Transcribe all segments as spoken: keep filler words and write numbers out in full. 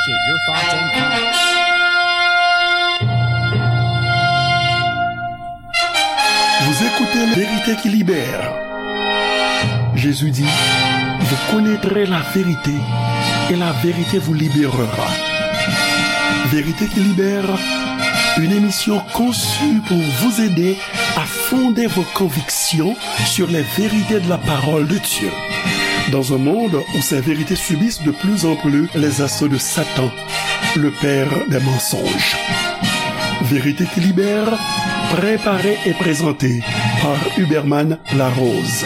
Get your thoughts and comments. Vous écoutez La Vérité qui libère. Jésus dit, vous connaîtrez la vérité et la vérité vous libérera. Vérité qui libère, une émission conçue pour vous aider à fonder vos convictions sur les vérités de la parole de Dieu. Dans un monde où ces vérités subissent de plus en plus les assauts de Satan, le père des mensonges. Vérité qui libère, préparée et présentée par Huberman Larose.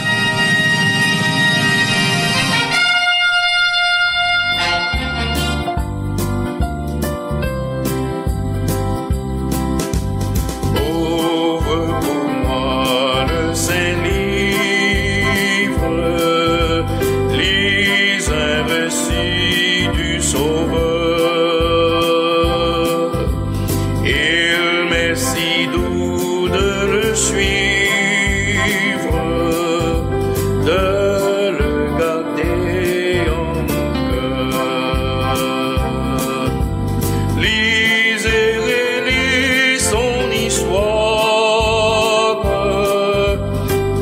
Ouvre pour moi le Saint-Livre, lis un récit du Sauveur. Il m'est si doux de le suivre, de le garder en mon cœur. Lis et relis son histoire,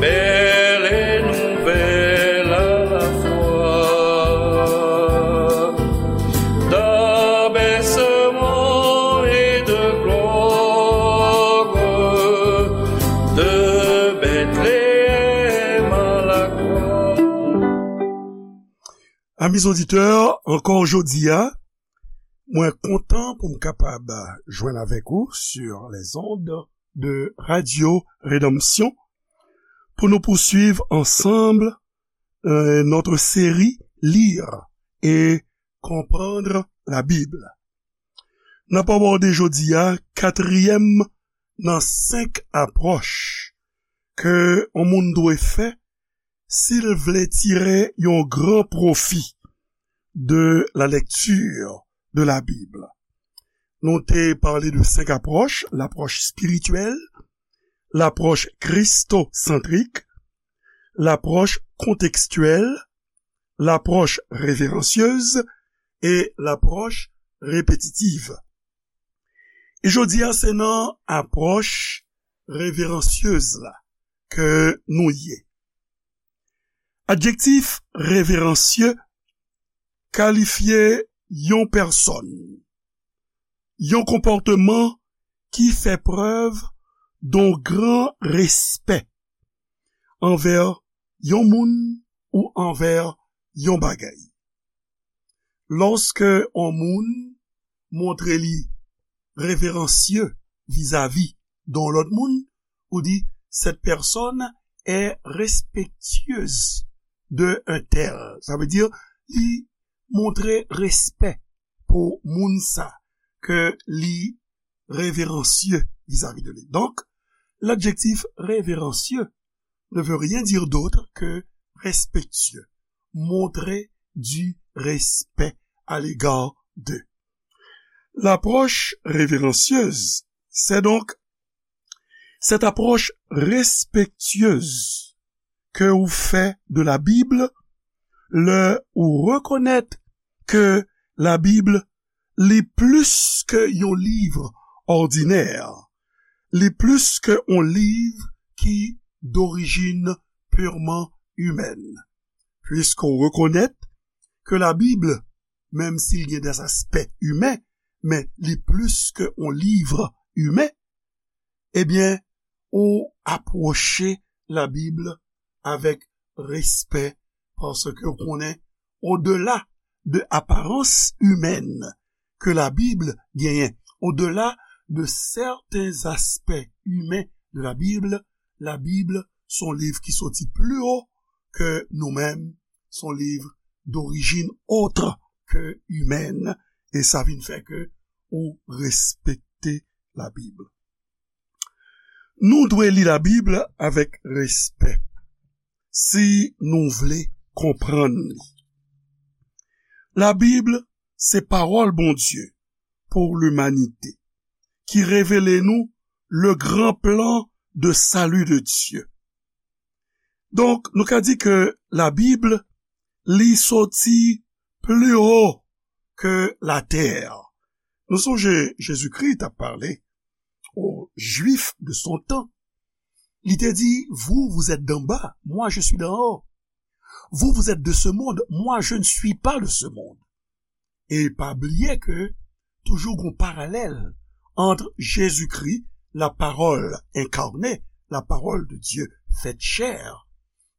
belle et nouvelle à la fois, d'abaissement et de gloire, de Bethléem à la croix. Amis auditeurs, encore aujourd'hui, mwen kontan pou m kapab jwenn avèk ou sur les ondes de Radio Rédemption pour nous poursuivre ensemble euh, notre série Lire et comprendre la Bible. N ap abòde jodi a katriyèm nan senk apwòch ke yon moun dwe fè si l vle tire yon gran pwofi de la lecture de la Bible. Nou te pale de senk apwòch, l'approche spirituelle, l'approche christocentrique, l'approche contextuelle, l'approche révérencieuse et l'approche répétitive. E jodi a, se nan apwòch reveransyez la ke nou ye. Adjektif reveransye kalifye yon pèsòn, yon konpòteman ki fè prèv yon gran respè anvè yon moun ou anvè yon bagay. Lòske yon moun montre li reveransye vizavi de yon lòt moun, ou di, cette personne est respectueuse de un tel. Sa vle di, li montre respè pou moun sa ke li reveransye vizavi de li. Donc, l'adjectif révérencieux ne veut rien dire d'autre que respectueux, montrer du respect à l'égard de. L'approche révérencieuse, c'est donc cette approche respectueuse ke ou fè de la Bible lè ou rekonèt ke la Bible li plis ke yon liv òdinè, li plis ke yon liv ki d'origine purement humaine. Puisque ou rekonèt ke la Bible, menm si l gen des aspects humains, men li plis ke yon liv imen, ebyen, ou apwoche la Bible avec respect, paske ou konnen, au-delà de apparence humaine ke la Bible genyen, au-delà de certains aspects humains de la Bible, la Bible se yon liv ki soti pli wo ke nou menm, se yon liv d'origine autre que humaine, e sa vin fè ke ou respekte la Bible. Nou dwe li la Bib avèk respè si nou vle konprann li. La Bib se pawòl Bondye pou limanite, ki revele nou le gran plan de salut de Dieu. Donk, nou ka di ke la Bib, li soti pli wo que la terre. Nou sonje Jezikri t ap pale aux Juifs de son temps. Li te di, vous, vous êtes d'en bas, moi, je suis d'en haut. Vous, vous êtes de ce monde, moi, je ne suis pas de ce monde. E pa bliye ke toujou gon paralèl ant Jezikri, la parole incarnée, la parole de Dieu faite chair,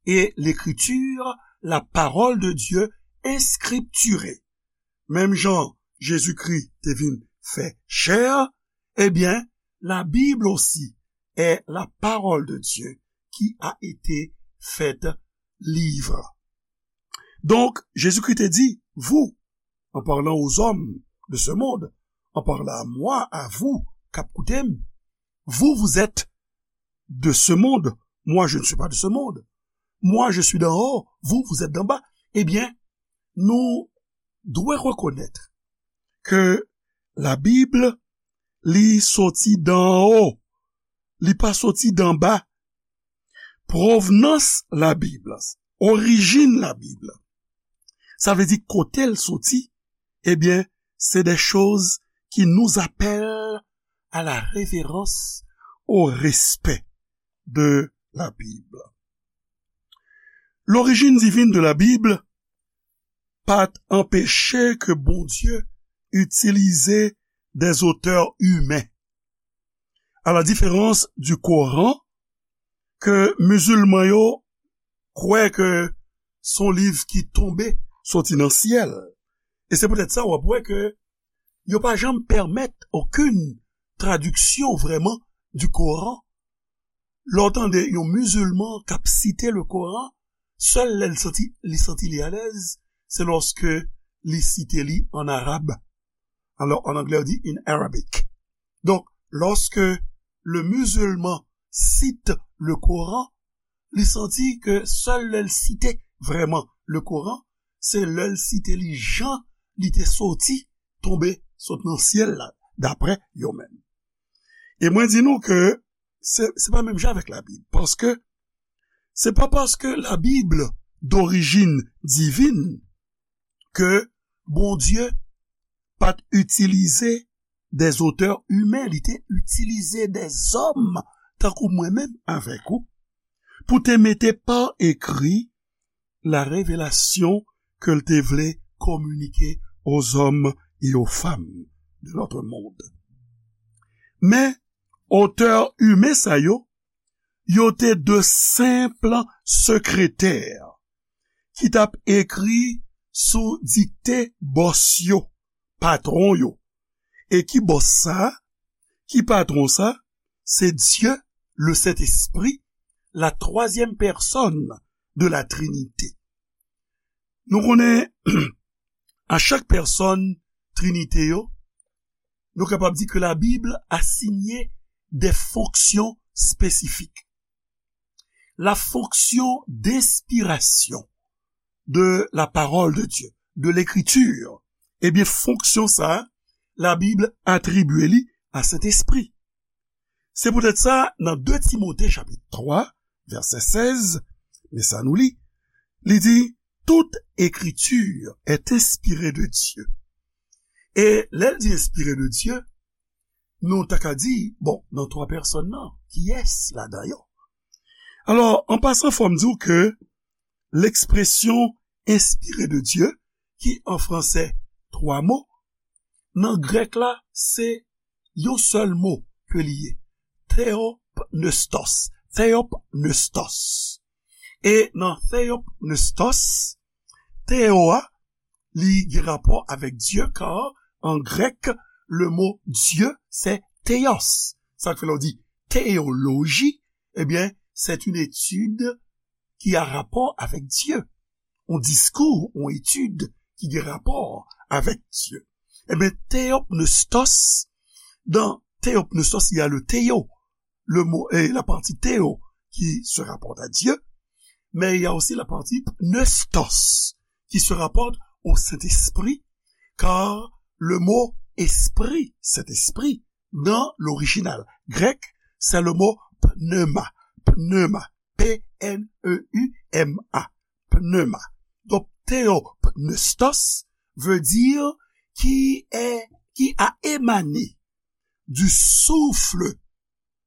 et l'écriture, la parole de Dieu inscripturée. Menm jan Jezikri te vin fè chè, ebyen, la Bible aussi est la parole de Dieu qui a été faite livre. Donk, Jezikri te di, vous, en parlant aux hommes de ce monde, en parlant à moi, à vous, k ap koute m, vous, vous êtes de ce monde, moi, je ne suis pas de ce monde. Moi, je suis d'en haut, vous, vous êtes d'en bas. Ebyen, nou dwe rekonèt ke Labib, li soti d'en haut, li pa soti d'en bas. Pwovnans Labib, orijin Labib, sa vle di kote l soti, ebyen, c'est des choses qui nous appellent à la révérence, au respect de la Bible. L'origine divine de la Bible pa t anpeche ke Bondye itilize des auteurs humains. À la différence du Coran, ke mizilman yo kwè ke se yon liv ki tonbe soti nan syèl. E se poutèt sa w ap wè ke yo pa janm pèmèt okenn tradiksyon vrèman du Coran. Lè w tande yon mizilman k ap site le Coran, sèl lè l santi, li santi li alèz, se lòske li site li an arab. Alors, en anglais, on dit in Arabic. Donc, lorsque le musulman cite le Coran, li santi ke sèl lè l site vrèman le Coran, se lè l site li jan li te soti, tonbe sot nan syèl la, daprè yo menm. E mwen di nou ke se, se pa menm jan avèk Labib, paske se pa paske Labib d'origine divine ke Bondye pa t itilize des auteurs humains, li te itilize des hommes, tankou mwen menm avèk ou, pou te mete pa ekri la révélation ke l te vle kominike aux hommes et aux femmes de notre monde. Men, otè imen sa yo, yo te de senp sekretè ki t ap ekri sou dikte bòs yo, patwon yo. E ki bòs sa? Ki patwon sa? Se Dye, le Sentespri, la twazyèm pèsòn de la Trinite. Nou konnen, a chak pèsòn Trinite yo, nou kapab di ke Labib asiyen de fonksyon espesifik. La fonction d'inspiration de la parole de Dieu, de l'écriture, ebyen, fonksyon sa a, Labib atribye li a Sentespri. Se poutèt sa, nan de Timote chapit twa, vèsè sèz, men sa nou li, li di, toute écriture est inspirée de Dieu. E lè l di inspirée de Dieu, nou ta ka di, bon, nan twa pèsòn nan, kiyès ladan yo? Alò, an pasan, fò m di w ke l'expression inspirée de Dieu, ki an fransè twa mo, nan grèk la, se yon sèl mo ke li ye, theopneustos, theopneustos. E nan theopneustos, theo a, li gen rapò avèk Dye, kar an grèk, le mo Dieu, c'est theos. Sa k fè lè w di théologie, ebyen, c'est une étude qui a rapport avec Dieu. On discours, on étude ki gen rapò avèk Dye. Ebyen, theopneustos, dans theopneustos, il y a le theo, le mot, et la partie theo qui se rapporte à Dieu, mais il y a aussi la partie pneustos qui se rapporte au Saint-Esprit, car le mot esprit, Saint-Esprit, dans l'original grec, c'est le mot pneuma, pneuma, P N E U M A, pneuma. Donc, theopneustos veut dire qui est, qui a émané du souffle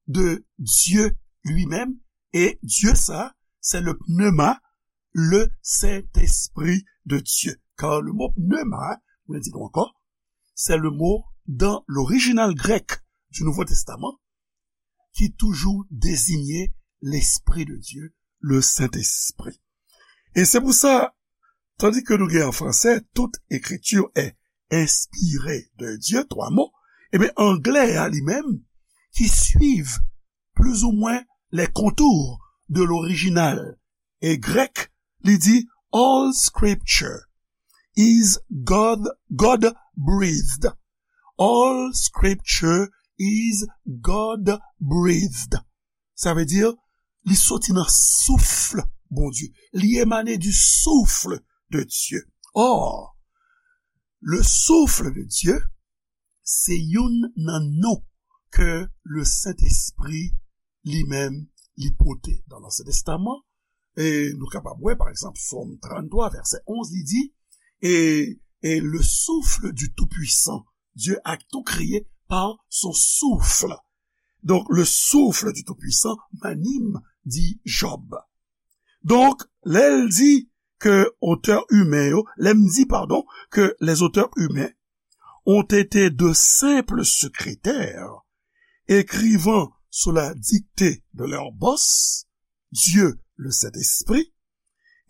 de Dieu lui-même, et Dieu sa, c'est le pneuma, le Saint-Esprit de Dieu. Car le mot pneuma, mwen di nou ankò, c'est le mot dans l'original grec du Nouveau Testament qui toujours désignait l'Esprit de Dieu, le Saint-Esprit. E se pou sa, tandi ke nou gen an fransè, toute écriture est inspirée de Dieu, twa mo, ebyen, anglè a li menm, qui suivent plus ou moins les contours de l'original e grèk, li di, all scripture is God, God breathed. All scripture is God breathed. Sa vle di, li soti nan souf Bondye. Li emane du souffle de Dieu. Or, le souffle de Dieu, se youn nan non ke le Sentespri li menm li pote nan Ansyen Testaman. E nou kapab wè, pa egzanp, Sòm tranntwa, vèsè onz, li di, et, et le souffle du Tout-Puissant, Dieu a tout créé par son souffle. Donc, le souffle du Tout-Puissant m'anime, dit Job. Donk, lè l di ke otè imen yo, lè m di, padon, ke les auteurs humains ont été de simples secrétaires, écrivant sous la dictée de leur boss, Dieu le Saint-Esprit,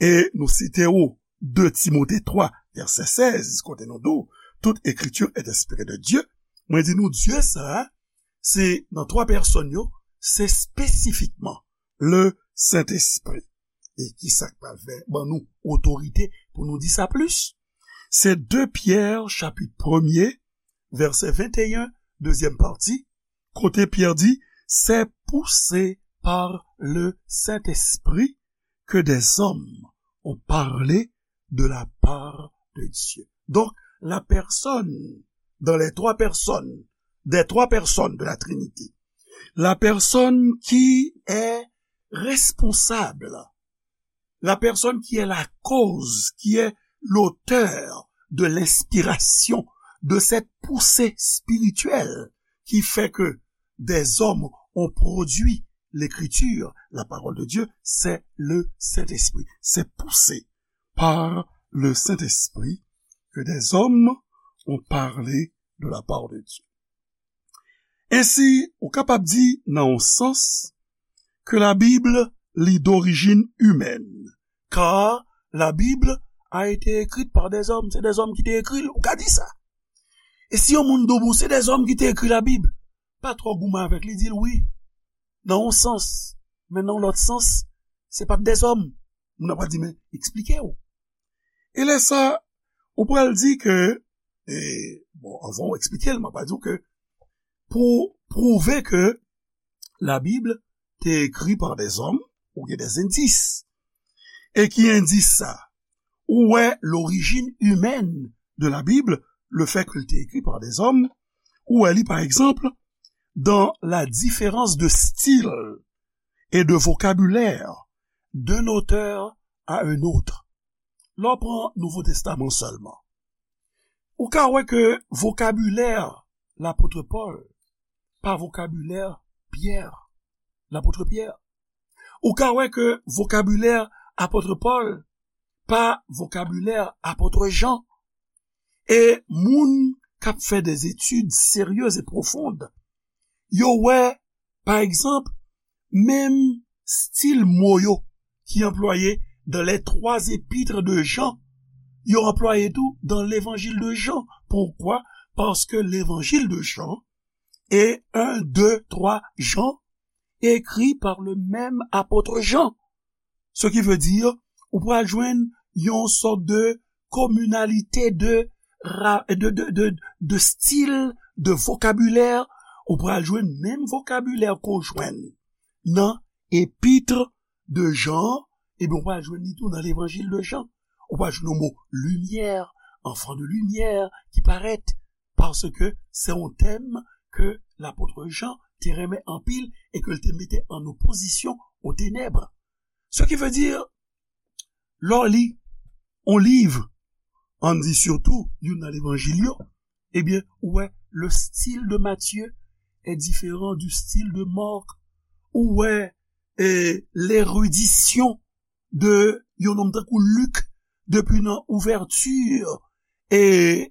e nou site ou de Timote twa, vèsè sèz, kote nou di w, toute écriture est inspirée de Dieu, mwen di nou, Dye sa a, se nan twa pèsòn yo, se espesifikman le Sentespri. E ki sa k pral fè ban nou otorite pou nou di sa plis? Se de Pyè, chapit premye, vèsè venteyen, dezyèm pati, kote Pyè di, c'est poussé par le Saint-Esprit que des hommes ont parlé de la part de Dieu. Donc, la personne, dans les trois personnes, des trois personnes de la Trinité, la personne qui est responsable, la personne qui est la cause, qui est l'auteur de l'inspiration, de cette poussée spirituelle qui fait que des hommes ont produit l'écriture, la parole de Dieu, c'est le Saint-Esprit. C'est poussé par le Saint-Esprit que des hommes ont parlé de la part de Dieu. Ensi, ou kapab di, nan yon sans, que la Bible, li d'origine humaine, car la Bible a été écrite par des hommes. Se dèzòm ki te ekri l, ou ka di sa. E si yon moun di w, bon, se dèzòm ki te ekri Labib, pa twò goumen avèk li, di l wi, nan yon sans, men nan yon lòt sans, se pa t dèzòm. Moun nan pral di, men, eksplike w. E lè sa, ou pral di ke, e, bon, anvan w eksplike l, mwen pral di w ke pou pwouve ke Labib te ekri pa dèzòm, ou gen dèzendis. E ki endis sa? Ou wè l'origine humaine de la Bible, le fait que l te écrit par des hommes, ou wè li, par exemple, dans la différence de style et de vocabulaire d'un auteur à un autre. Lè w pran Nouvo Testaman sèlman, ou ka wè ke vokabilè lapot Pòl pa vokabilè Pyè, lapot Pyè. Ou ka wè ke vokabilè apot Pòl pa vokabilè apot Jan. E moun k ap fè des études sérieuses et profondes, yo wè, pa egzanp, menm stil mo yo ki anplwaye dans les trois épîtres de Jean, yo anplwaye tou dans l'évangile de Jean. Pourquoi? Parce que l'évangile de Jean et un, deux, trois Jean écrit par le même apôtre Jean. Ce qui veut dire, ou pral jwenn yon sòt de communalité de, ra- de, de, de, de style, de vocabulaire, ou pral jwenn menm vokabilè ke w jwenn nan épître de Jean, ebyen, ou pral jwenn li tou nan l'évangile de Jean. Ou pral jwenn yon mo limyè, enfant de lumière, ki parèt, paske se yon tèm ke lapot Jan te renmen anpil e ke l te mete an opozisyon aux ténèbres. Ce qui veut dire, lè w li yon liv, ann di sitou youn nan levanjil yo, ebyen, ou wè, le style de Matthieu est différent du style de Marc. Ou wè, e, l'érudition de yon nonm tankou Lik, depi nan ouvèti e,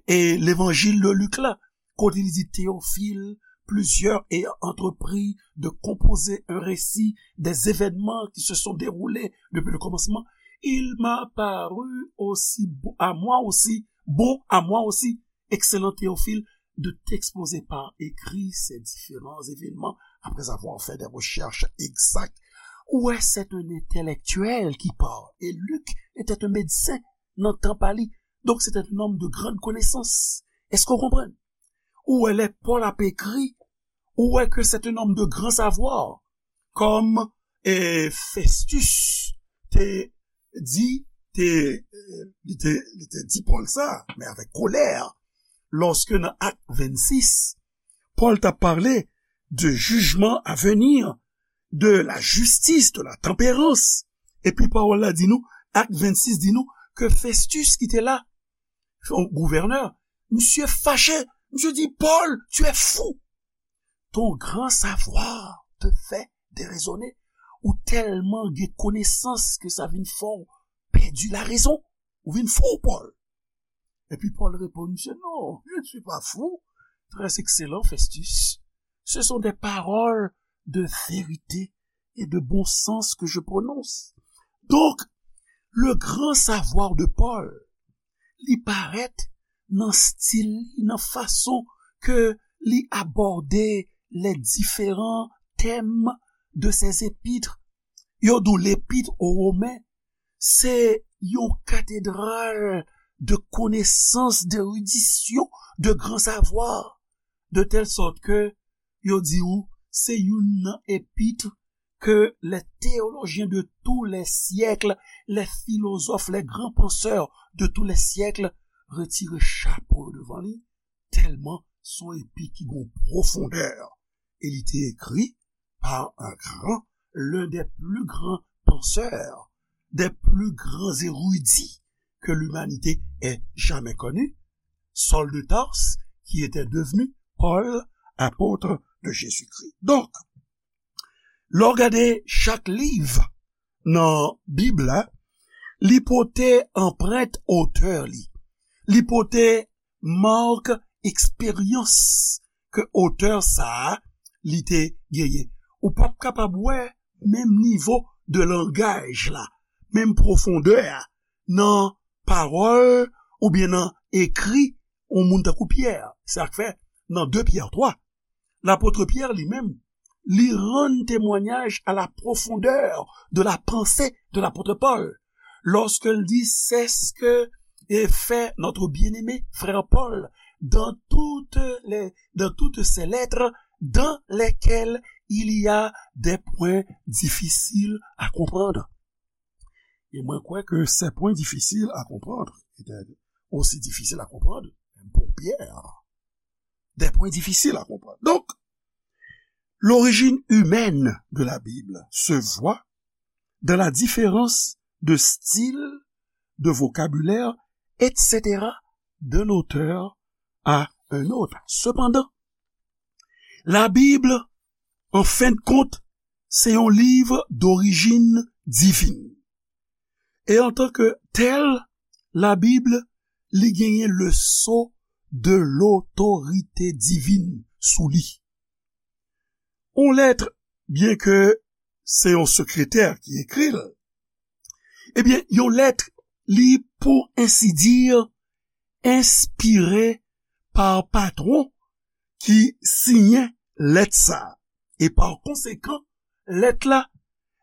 e levanjil de Lik la, kote li di, Théophile, plusieurs ayant entrepris de composer un récit des événements qui se sont déroulés depuis le commencement, il m'a paru aussi bon, à moi aussi, bon à moi aussi, excellent Théophile, de t'exposer par écrit ces différents événements après avoir fait des recherches exactes. Ou wè, c'est un intellectuel qui parle. Et Luc était un médecin nan tan pa li. Donk, c'était un homme de grande connaissance. Èske w konprann? Ou wè, lè Pòl ap ekri, ou wè ke c'est un homme de grand savoir. Kòm, e, Festus te di, te, e, li te, li te di Pòl sa, men avèk kolè, lòske nan Ak vennsis, Pòl t ap pale de jijman a veni, de la jistis, de la tanperans. Epi pawòl la di nou, Ak vennsis di nou ke Festus ki te la, yon gouvènè, misye fache, misye di, Paul, tu es fou. Ton grand savoir te fait déraisonner. Ou tèlman gen konesans ke sa vin fè w pèdi larezon. Ou vin fou, Paul. Epi Paul reponn, misye, non, je ne suis pas fou. Très excellent, Festus. Ce sont des paroles de vérité et de bon sens que je prononce. Donk, le grand savoir de Paul, li parèt nan stil li, nan fason ke li abòde les différents thèmes de ses épîtres. Yo di w Lepit o Women, se yon katedral de konesans, de eridisyon, de gran savwa, de tèl sòt ke yo di w se youn nan epit ke les théologiens de tous les siècles, les philosophes, les grands penseurs de tous les siècles retire chapo yo devan li, tèlman se yon epit ki gen pwofondè. E li te ekri par un grand, l'un des plus grands penseurs, des plus grands érudits que l'humanité ait jamais connu, Saul de Tarse, qui était devenu Paul, apôtre de Jésus-Christ. Donk, lè w gade chak liv nan Bib la, li pote anprent otè li. Li pote mak eksperyans ke otè sa a li te genyen. Ou p ap kapab wè menm nivo de langaj la, menm pwofondè a nan pawòl oubyen nan ekri yon moun tankou Pyè. Se sa k fè nan de Pyè twa, lapot Pyè li menm, li rann temwanyaj à la profondeur de la pensée de l'apôtre Paul, lorsqu'il dit, c'est ce que fait notre bien-aimé frère Paul dans toutes les, dans toutes ses lettres dans lesquelles il y a des points difficiles à comprendre. E mwen kwè ke ces points difficiles à comprendre étaient aussi difficiles à comprendre pour Pierre. Des points difficiles à comprendre. Donc, l'origine humaine de la Bible se voit dans la différence de style, de vocabulaire, et cetera, d'un auteur à un autre. Cependant, la Bible, en fin de compte, se yon liv d'origine divine. E antanke tèl, Labib, li genyen le sceau de l'autorité divine sou li. Yon lèt, byenke se yon sekretè ki ekri l, ebyen, yon lèt, li, pou ensi dir, enspire pa patwon ki siyen lèt sa a. E pa konsekan, lèt la,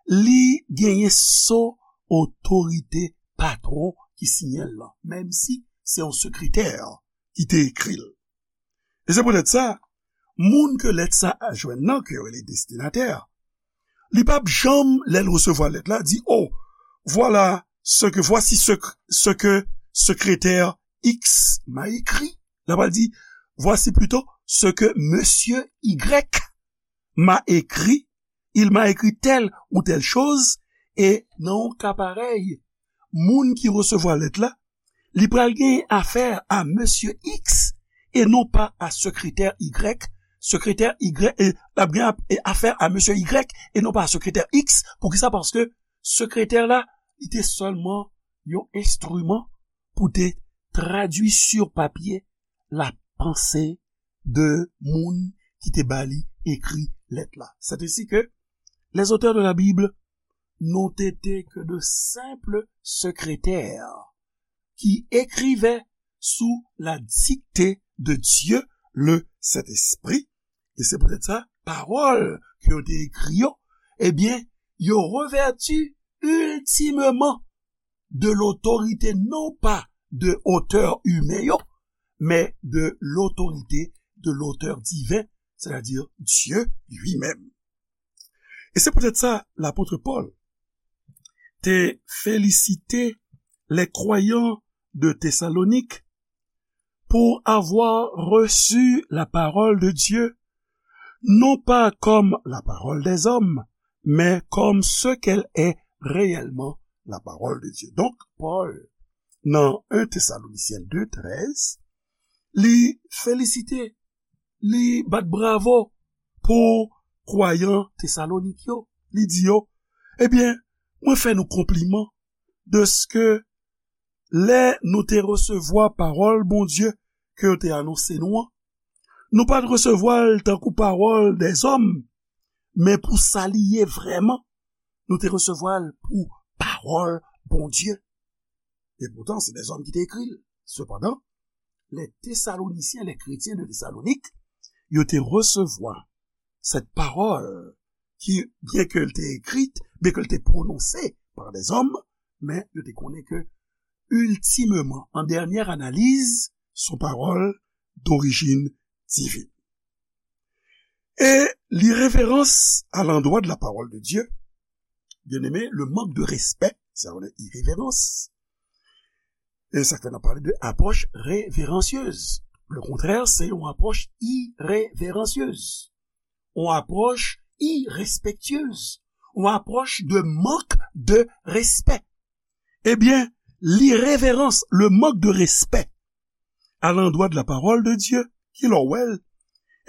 li genyen sceau otorite patwon ki siyen l lan, menm si se yon sekretè ki te ekri l. E se poutèt sa, moun ke lèt sa a jwenn nan, ke yo rele destinatè, li p ap janm, lè l resevwa lèt la, di, oh, voilà ce que, voici ce que, ce que secrétaire X m'a écrit. L ap pral di, voici plutôt ce que monsieur Y m'a écrit. Il m'a écrit telle ou telle chose. E nan yon ka parèy, moun ki resevwa lèt la, li pral gen afè a mesye X e non pa a sekretè Y. Sekretè Y, e, l ap gen ap- e afè a mesye Y e non pa a sekretè X. Poukisa? Paske sekretè la, li te sèlman yon enstriman pou te tradui sur papye la panse de moun ki te ba li ekri lèt la. C'est ainsi que les auteurs de la Bible n'ont été que de simples secrétaires qui écrivaient sous la dictée de Dieu le Saint-Esprit. E se poutèt sa, pawòl ke yo te ekri yo, ebyen, yo revèti iltimeman de lotorite non pa de otè imen yo, men de lotorite de lotè diven, sètadi Dye li menm. E se poutèt sa, lapot Pòl te felisite les croyants de Thessalonique pour avoir reçu la parole de Dieu, non pas comme la parole des hommes, mais comme ce qu'elle est réellement, la parole de Dieu. Donk, Pòl, nan en Thessaloniciens deux treize, li felisite, li bat bravo pou kwayan Tesalonik yo. Li di yo, ebyen, mwen fè nou konpliman dèske lè nou te resevwa pawòl Bondye ke yo te anonse nou an, nou pa t resevwa l tankou pawòl dèzòm, men pou sa li ye vrèman, nou te resevwa l pou pawòl Bondye. E poutan, se dèzòm ki te ekri l. Sepandan, les Thessaloniciens, les chrétiens de Thessalonique, yo te resevwa cette parole qui, bien qu'elle était écrite, bien qu'elle était prononcée par des hommes, men yo te konnen ke ultimement, en dernière analyse, son pawòl d'origine divine. Et l'irrévérence à l'endroit de la parole de Dieu, bien aimé, le manque de respect, c'est une irrévérence. E sa k fè n ap pale de apwòch reveransyez. Le contraire, c'est une approche irrévérencieuse. Une approche irrespectueuse. Une approche de manque de respect. Ebyen, l'irrévérence, le manque de respect à l'endroit de la parole de Dieu, ki lè w wè l,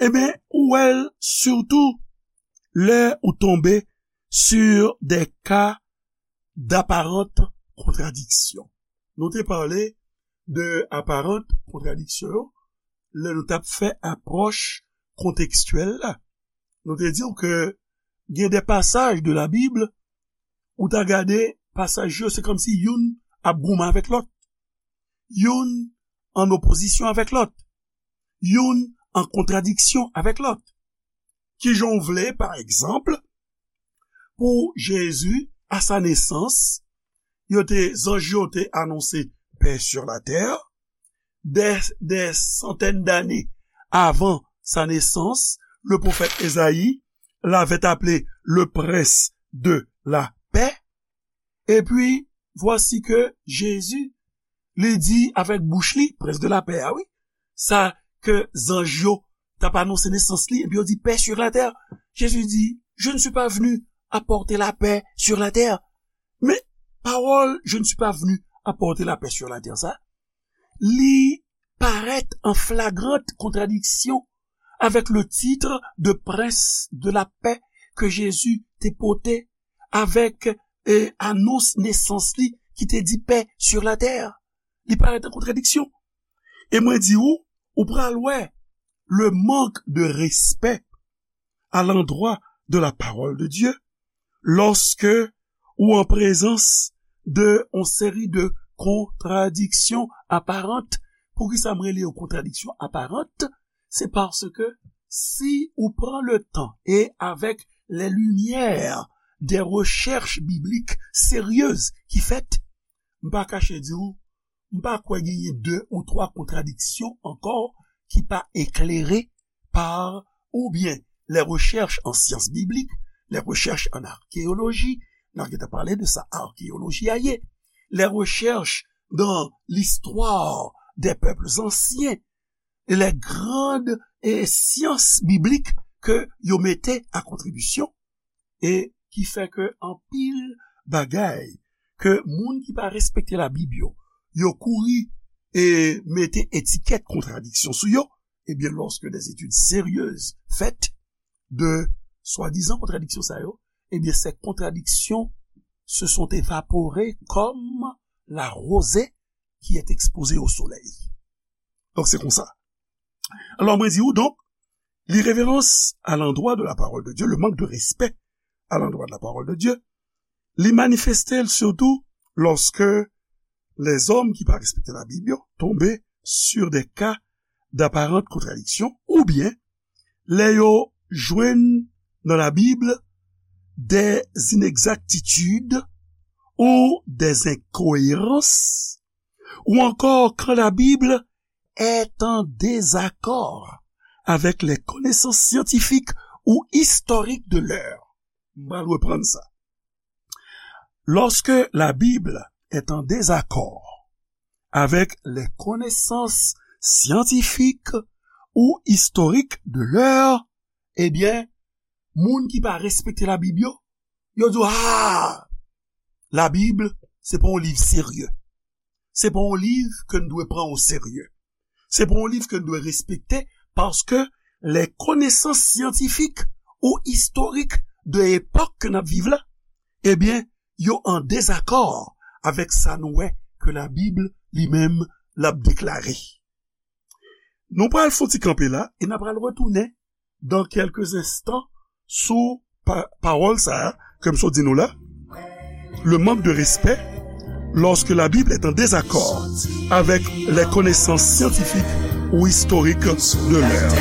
ebyen, ou wè l sitou lè ou tonbe sur des cas d'apparente contradiction. Nou te pale de aparant kontradiksyon yo lè nou t ap fè apwòch kontekstyèl la. Nou te di w ke gen de pasaj de la Bib, ou ta gade pasaj yo, se kòmsi youn ap goumen avèk lòt. Youn an opozisyon avèk lòt. Youn an kontradiksyon avèk lòt. Kijan w vle, pa egzanp, pou Jezi, à sa naissance, yo te, zanj yo te anonse paix sur la terre, des, des centaines d'années avant sa naissance, le prophète Ésaïe l'avait appelé le prince de la paix. Et puis, voici que Jésus, li di avèk bouch li, prince de la paix, ah oui, sa ke zanj yo t ap anonse nesans li, epi yo di paix sur la terre. Jésus dit, je ne suis pas venu apporter la paix sur la terre. Men pawòl je ne suis pas venu apporter la paix sur la terre sa, li parèt an flagrant kontradiksyon avèk le titre de prince de la paix ke Jezi te pote avèk, e, anons nesans li ki te di paix sur la terre. Li parèt an kontradiksyon. E mwen di ou, ou pral wè le manque de respect à l'endroit de la parole de Dieu lorsque ou en présence de yon seri de kontradiksyon aparant. Poukisa m rele yo kontradiksyon aparant? Se paske si ou pran le tan e avèk les lumières des recherches bibliques sérieuses ki fèt, m pa kache di ou, m pa kwè genyen de ou twa kontradiksyon ankò ki pa eklere par oubyen les recherches en sciences bibliques, les recherches en archéologie, n a gentan pale de sa archéologie a ye, les recherches dans l'histoire des peuples anciens, les grandes, e, sciences bibliques ke yo mete a kontribisyon, e ki fè ke anpil bagay ke moun ki pa respekte Labib yo, yo kouri e mete etikèt kontradiksyon sou yo, ebyen, lorsque des études sérieuses faites de swadizan kontradiksyon sa yo, ebyen, ces contradictions se sont évaporées comme la rosée qui est exposée au soleil. Donk, se konsa. Alò, mwen di w, donk, l'irrévérence à l'endroit de la parole de Dieu, le manque de respect à l'endroit de la parole de Dieu, li manifeste l sitou lorsque les hommes ki pa respekte Labib yo tonbe sur des cas d'apparente contradiction, oubyen lè yo jwenn nan Labib des inexactitudes ou des incohérences, ou encore quand la Bible est en désaccord avec les connaissances scientifiques ou historiques de l'heure. M pral reprann sa. Lorsque la Bible est en désaccord avec les connaissances scientifiques ou historiques de l'heure, ebyen, moun ki pa respekte Labib yo, yo di, ah, Labib, se pa yon liv serye. Se pa yon liv ke n dwe pran o serye. Se pa yon liv ke n dwe respekte, paske les connaissances scientifiques ou historiques de epòk ke n ap viv la, ebyen, yo an dezakò avèk sa nou wè ke Labib li menm l ap deklare. Nou pral fè yon ti kanpe la e n ap pral retounen dans quelques instants sou pa, pawòl sa a ke m sot di nou la, le manque de respect lorsque la Bible est en désaccord avec les connaissances scientifiques ou historiques de l'heure.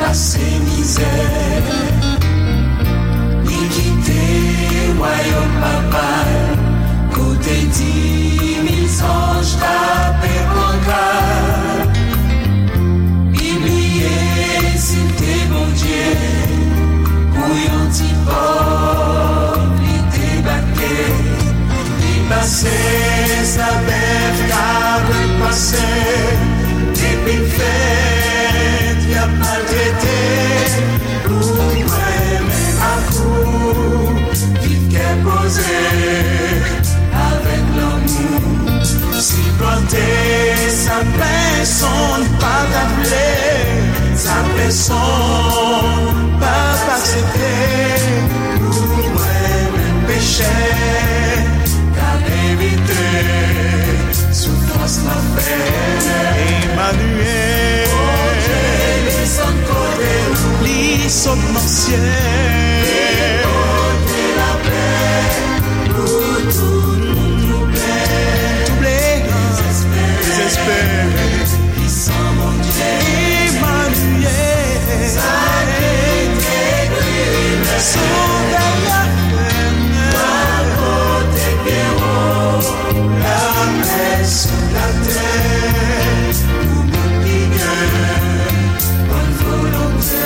Pase mizè, li kite wayòm Papa l, kote di mil zanj t ape pran gad. Li bliye si l te Bondye pou yon ti pòv li debake. Li pase sa bèf, kabrit pase, depi l fèt y ap maltrete. Pou mwen menm ak ou, viv kè poze avèk lanmou. Sipòte sa pèsonn pa ta vle, sa pèsonn pa t aksepte. Pou mwen menm pechè k ap evite soufrans lanfè. Emaniyèl. Bondye desann kote nou. Li sot nan syèl. Li pote lapè pou tout moun twouble. Twouble. Dezespere. Dezespere. Emaniyèl. Sa ki te ekri lè sou dèyè fènèt. Pral pote pye wo, lapè sou latè, pou moun ki gen bòn volonte.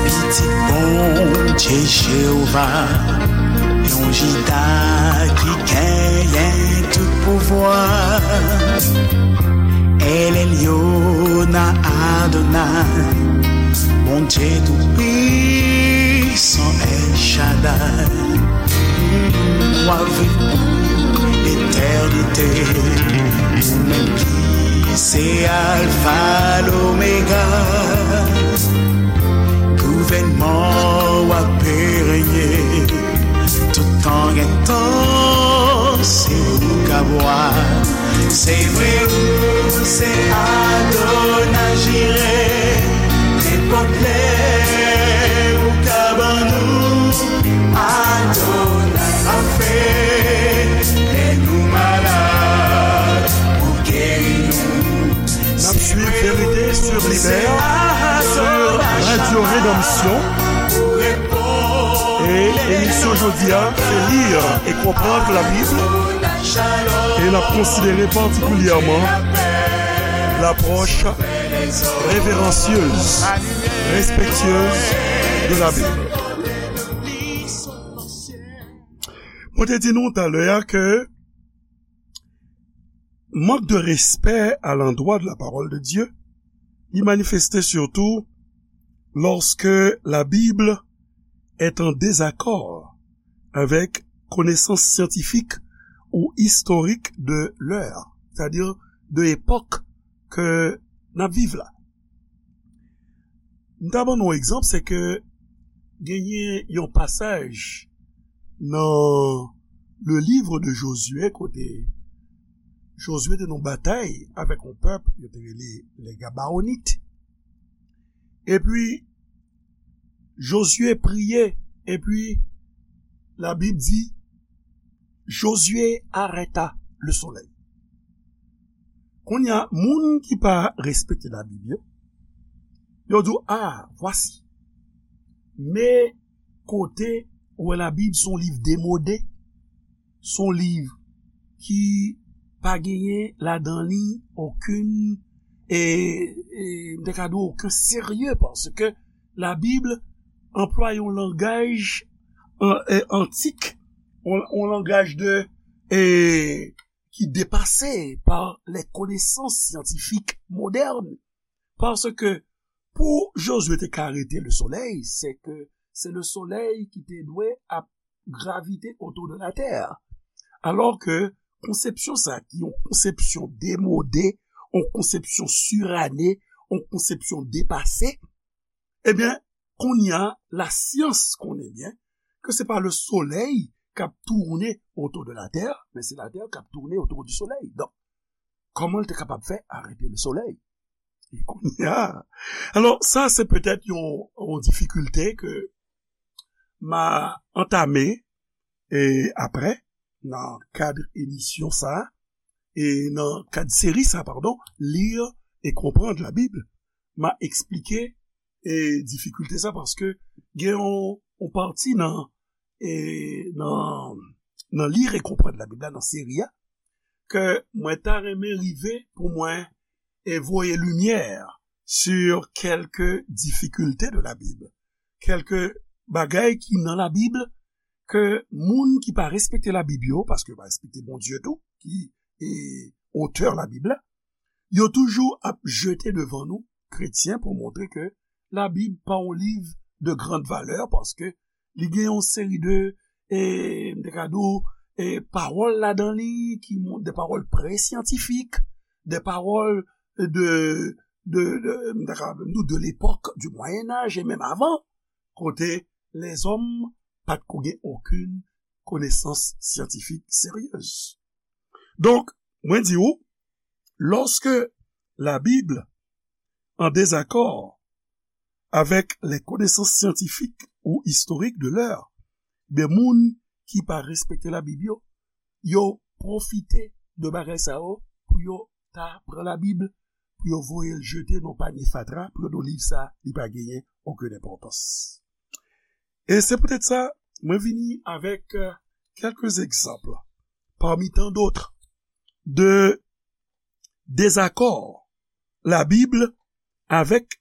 Pitit Bondye Jewova, yon Jida ki genyen tout pouvwa. El Elyon Adonay, Bondye Toupisan El Chadday, w ap viv pou letènite. Ou menm ki se Alfa, Lomega, gouvènman w ap renye. Toutan gen tan, se ou k ap wa. Se vre, ou se Adonay Jire. Nenpòt lè ou ka ban nou Adonay Rafe. Lè nou malad, ou geri nou. N ap swiv Vérité sur Libère sur Radio Rédemption. E emisyon jodi a, se li e konprann Labib. E n ap konsidere patikilyèman lapwòch reveransyez, respektyez de la Bible. Mwen te di nou talè a ke mank de respè à l'endroit de la parole de Dieu, il manifestait surtout lorsque la Bible est en désaccord avec connaissances scientifiques ou historiques de l'heure, c'est-à-dire de l'époque que n ap viv la. M ta ban nou yon egzanp, se ke genyen yon pasaj nan le livre de Josué kote Josué te nan batay avèk yon pèp, yo te rele les Gabaonites. Epi, Josué priye, epi Labib di, Josué arrêta le soleil. Kounye a, moun ki pa respekte Labib yo, yo di w, ah, voici. Men kote ou wè Labib se yon liv demode, se yon liv ki pa genyen ladan li okenn, e, e, m te ka di w okenn serye, paske Labib anplwaye yon langaj an-, e, antik, yon, yon langaj de, e, ki depase pa les connaissances scientifiques modernes. Paske pou Josué te ka arete le soleil, se ke se le soleil ki te dwe ap gravite autour de la terre. Alò ke konsepsyon sa, ki yon konsepsyon demode, yon konsepsyon sirane, yon konsepsyon depase, ebyen, kounye a, lasyans konnen byen ke se pa le soleil k ap tourner autour de la terre, men se la terre k ap tourner autour du soleil. Donk, kòman l te kapab fè arete le soleil? E kounye a, alò, sa se petèt yon, yon difikilte ke m a antame, e apre, nan kad emisyon sa, e nan kad seri sa, padon, Lire et comprendre la Bible, m a eksplike, e, difikilte sa, paske gen yon, yon pati nan, e, nan, nan Lire et comprendre la Bible la, nan seri a, ke mwen ta renmen rive pou mwen, e, voye limyè sur quelques difficultés de la Bible. Kèlke bagay ki nan Labib ke moun ki pa respekte Labib yo, paske yo pa respekte Bondye tou, ki, e, otè Labib la, yo toujou ap jete devan nou, kretyen, pou montre ke Labib pa yon liv de grande valeur, paske li gen yon seri de, e, m te ka di w, e, pawòl ladan li, ki moun, de pawòl presyantifik, de pawòl de, de, de, m te ka di w, de l'époque du Moyen Âge, e menm avan, kote lèzòm pa t ko gen okenn konesans syantifik seryez. Donk, mwen di w, lorsque la Bible en désaccord avec les connaissances scientifiques ou historiques de l'heure, ben moun ki pa respekte Labib yo, yo pwofite de bagay sa yo pou yo ta pran Labib, pou yo voye l jete nan panye fatra, pou yo di w liv sa, li pa genyen okenn enpòtans. E se poutèt sa, mwen vini avèk, euh, quelques exemples, parmi tant d'autres, de désaccord la Bible avec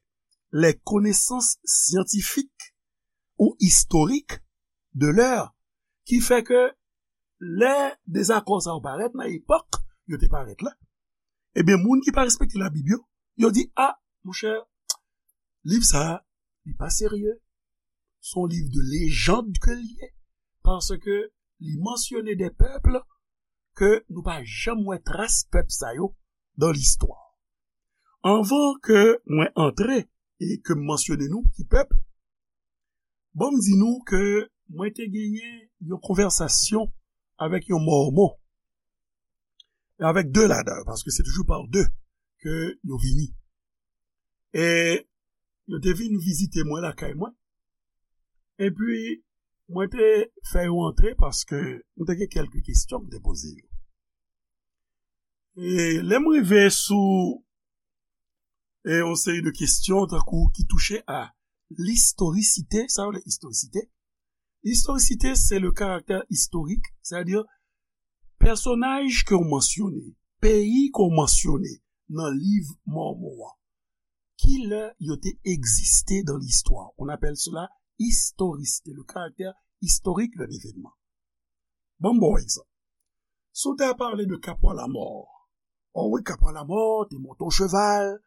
les connaissances scientifiques ou historiques de l'heure, ki fè ke lè dezakò sa yo parèt nan epòk yo te parèt la, ebyen, moun ki pa respekte Labib yo, yo di, a, monchè, liv sa a, li pa serye, se yon liv de lejand ke l ye, paske li mansyone de pèp ke nou pa janm wè tras pèp sa yo dan listwa. Anvan ke mwen antre e ke m mansyone nou ki pèp, ban m di nou ke mwen te genyen yon konvèsasyon avèk yon Mòmon, avèk de ladan yo, paske se toujou pa de ke yo vini. E yo te vin vizite mwen lakay mwen. Epi, mwen te fè yo antre paske mwen te gen kèlke kesyon m te poze yo. E lè m rive sou, e, yon seri de kesyon, tankou ki touche a listorisite, sa yo rele istorisite. Istorisite, se le caractère historique, sètadi pèsonaj ke w mansyone, peyi ke w mansyone nan liv Mòmon an, ki lè yo te egziste dans l'histoire. On appelle cela historicité, le caractère historique d'un événement. Ban m ba w egzanp. Si w ta pale de Kapwa Lamò, o wi, Kapwa Lamò te monte yon cheval,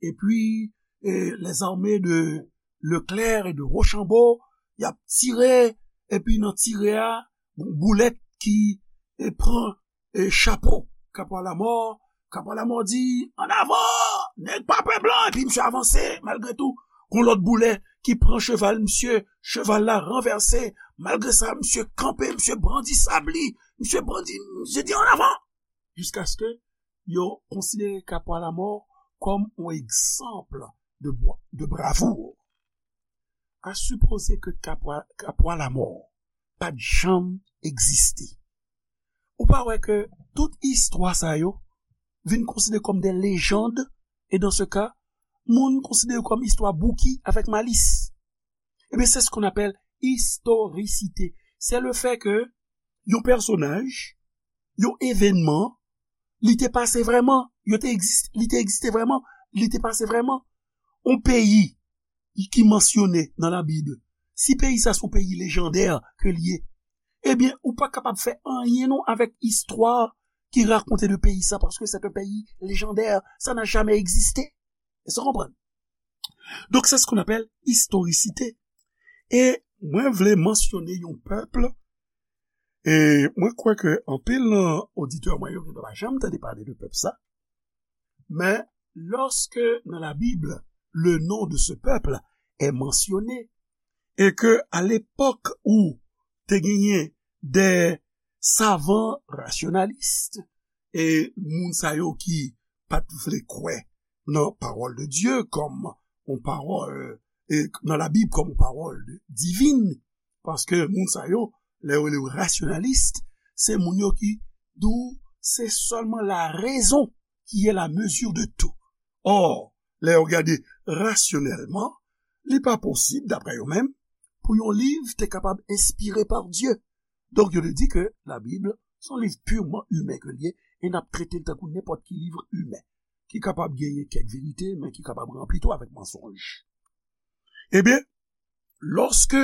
epi e, lèzame de Leclerc e de Rochambeau, y ap tire, epi nan tire a, gon boulèt ki e, pran e, chapo Kapwa Lamò. Kapwa Lamò di, "An avan, nèg pa pè blan," epi misye avanse, malgre tou, gon lòt boulèt ki pran cheval misye, cheval la ranvèse, malgre sa, misye kanpe, misye brandi sab li, misye brandi, misye di, "An avan!" Jiskaske yo konsidere Kapwa Lamò kòm yon egzanp de bwa-, de bravou. A sipoze ke Kapwa, Kapwa Lamò pa t janm egziste. Ou pa wè ke tout istwa sa yo vin konsidere kòm de lejand, e dans ce cas, moun konsidere kòm istwa Bouki avèk Malis. Ebyen, c'est ce qu'on appelle historicité. C'est le fait que yon pèsonaj, yon evènman, li te pase vrèman, yo te egzis-, li te egziste vrèman, li te pase vrèman. Yon peyi ki mansyone nan Labib, si peyi sa se yon peyi lejandè ke l ye, ebyen, ou pa kapab fè anyen non avèk istwa ki rakonte de peyi sa, paske c'est un pays légendaire, ça n'a jamais existé. Èske w konprann? Donk, c'est ce qu'on appelle historicité. E mwen vle mansyone yon pèp, e mwen kwè ke anpil nan oditè mwen yo genlè pa janm tande pale de pèp sa, men lorsque dans la Bible, le nom de ce peuple est mentionné, et que à l'époque où te genyen des savants rationalistes, e moun sa yo ki pa t vle kwè nan pawòl de Dye kòm yon pawòl, e nan Labib kòm yon pawòl divin, paske moun sa yo, lè yo rele yo rasyonalis, se moun yo ki di w se sèlman la raison qui est la mesure de tout. Or, lè yo gade rasyonèlman, li pa posib, daprè yo menm, pou yon liv te kapab enspire pa Dye. Donk, yo te di ke Labib se yon liv purman imen ke l ye, e n ap trete l tankou nenpòt ki liv imen, ki kapab genyen kèk verite, men ki kapab ranpli tou avèk mansonj. Ebyen, lorsque